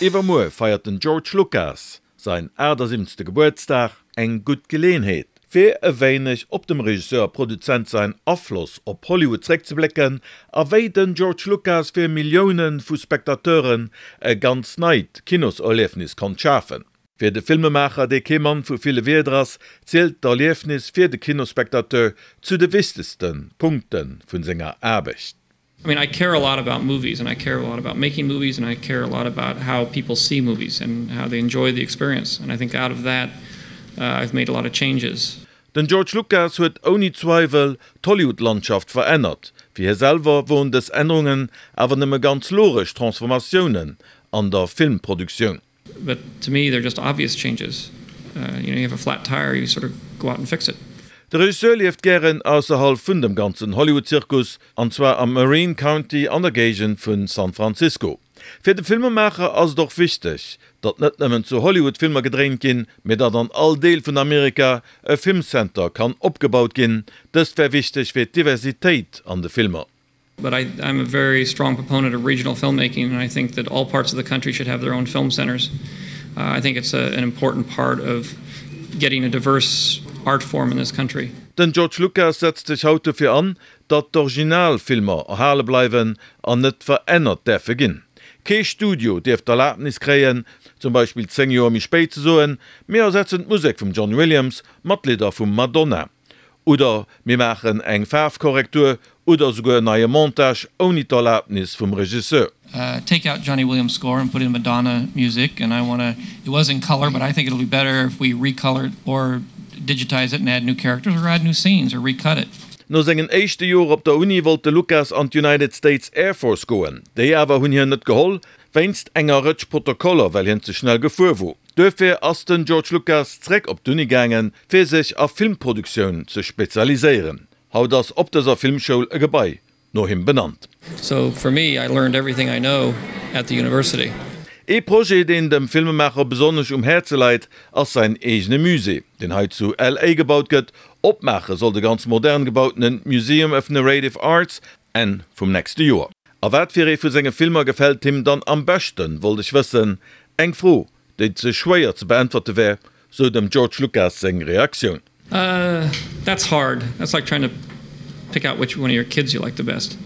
Iwwermuer feiert den George Lucas säin 78. Gebuertsdag, eng gutt Geleeënheet, fir e wéineg op dem Regisseur a Produzent säin Afloss op Hollywood zréckzeblécken a wéi den George Lucas fir Millioune vu Spectateuren e ganz neit Kinoserliefnis konnt schafen. Fir de Filmemaacher, dee kee Mann vu ville Wierder ass, zielt d'Erliefnis fir de Kinospectateur zu de wichtegste Punkte vun senger Aarbecht. I mean I care a lot about movies and I care a lot about making movies and I care a lot about how people see movies and how they enjoy the experience and I think out of that I've made a lot of changes. Den George Lucas huet ouni Zweiwel d'Hollywood-Landschaft verännert. Fir hie selwer woren dës Ännerungen awer nëmme ganz logesch Transformatiounen an der Filmproduktioun. But to me they're just obvious changes. You know, you have a flat tire, you sort of go out and fix it. De Regisseur lieft gären ausserhalb vun dem ganzen Hollywood-Zirkus, an zwar am Marin County an der Géigend vun San Francisco. Fir de Filmemaacher ass et och wichteg, datt net nëmmen zu Hollywood Filmer gedréint ginn, mee datt an all Deel vun Amerika e Filmcenter kann opgebaut ginn. Dëst wär wichteg fir d'Diversitéit an de Filmer. But I, I'm a very strong proponent of regional filmmaking and I think that all parts of the country should have their own film centers. Uh, I think it's a, an important part of getting a diverse art form in this country. Den George Lucas setzt sech haut dofir an, datt d'Originalfilmer erhale bleiwen an net verännert däerfe ginn. Kee Studio dierf d'Erlabnis kréien, zum Beispill 10 Joer méi spéit ze soen, mir ersetzen d'Musek vum John Williams mat Lidder vum Madonna. Oder mir maachen eng Faarfkorrektur oder esouguer en neie Montage ouni d'Erlaabnis vum Regisseur. Take out Johnny Williams score and put in Madonna music and I wanna, it was in color but I think it'll be better if we recolor it or digitize it and add new characters or add new scenes or recut it. No sengen éischte Joer op der Uni wollt de Lucas an d'United States Air Force goen. Déi awer hunn hien net geholl, wéinst enger Rëtsch Protokoller, well hien ze schnell gefuer wor. Duerfir ass den George Lucas zeréck op d'Uni gaangen, fir sech a Filmproduktioun ze spezialiséieren. Haut ass op dëser Filmschoul e Gebai no him benannt. So for me, I learned everything I know at the university. Ee Projet, deen dem Filmemaacher besonnesch um Häerze leit, ass säin eegene Musée, deen hei zu LA gebaut gëtt. Opmaache soll de ganz modern gebautene Museum of Narrative Arts Enn vum nächste Joer. A wat fir ee vu senge Filmer gefält him dann am beschten, wollt ech wëssen. Eng Fro, déi ze schwéier ze beäntwerte wär, sou dem George Lucas seng Reaktioun. Uh, that's hard. That's like trying to pick out which one of your kids you like the best.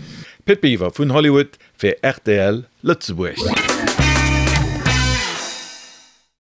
Pit Biwer vun Hollywood fir rtl Lëtzebuerg.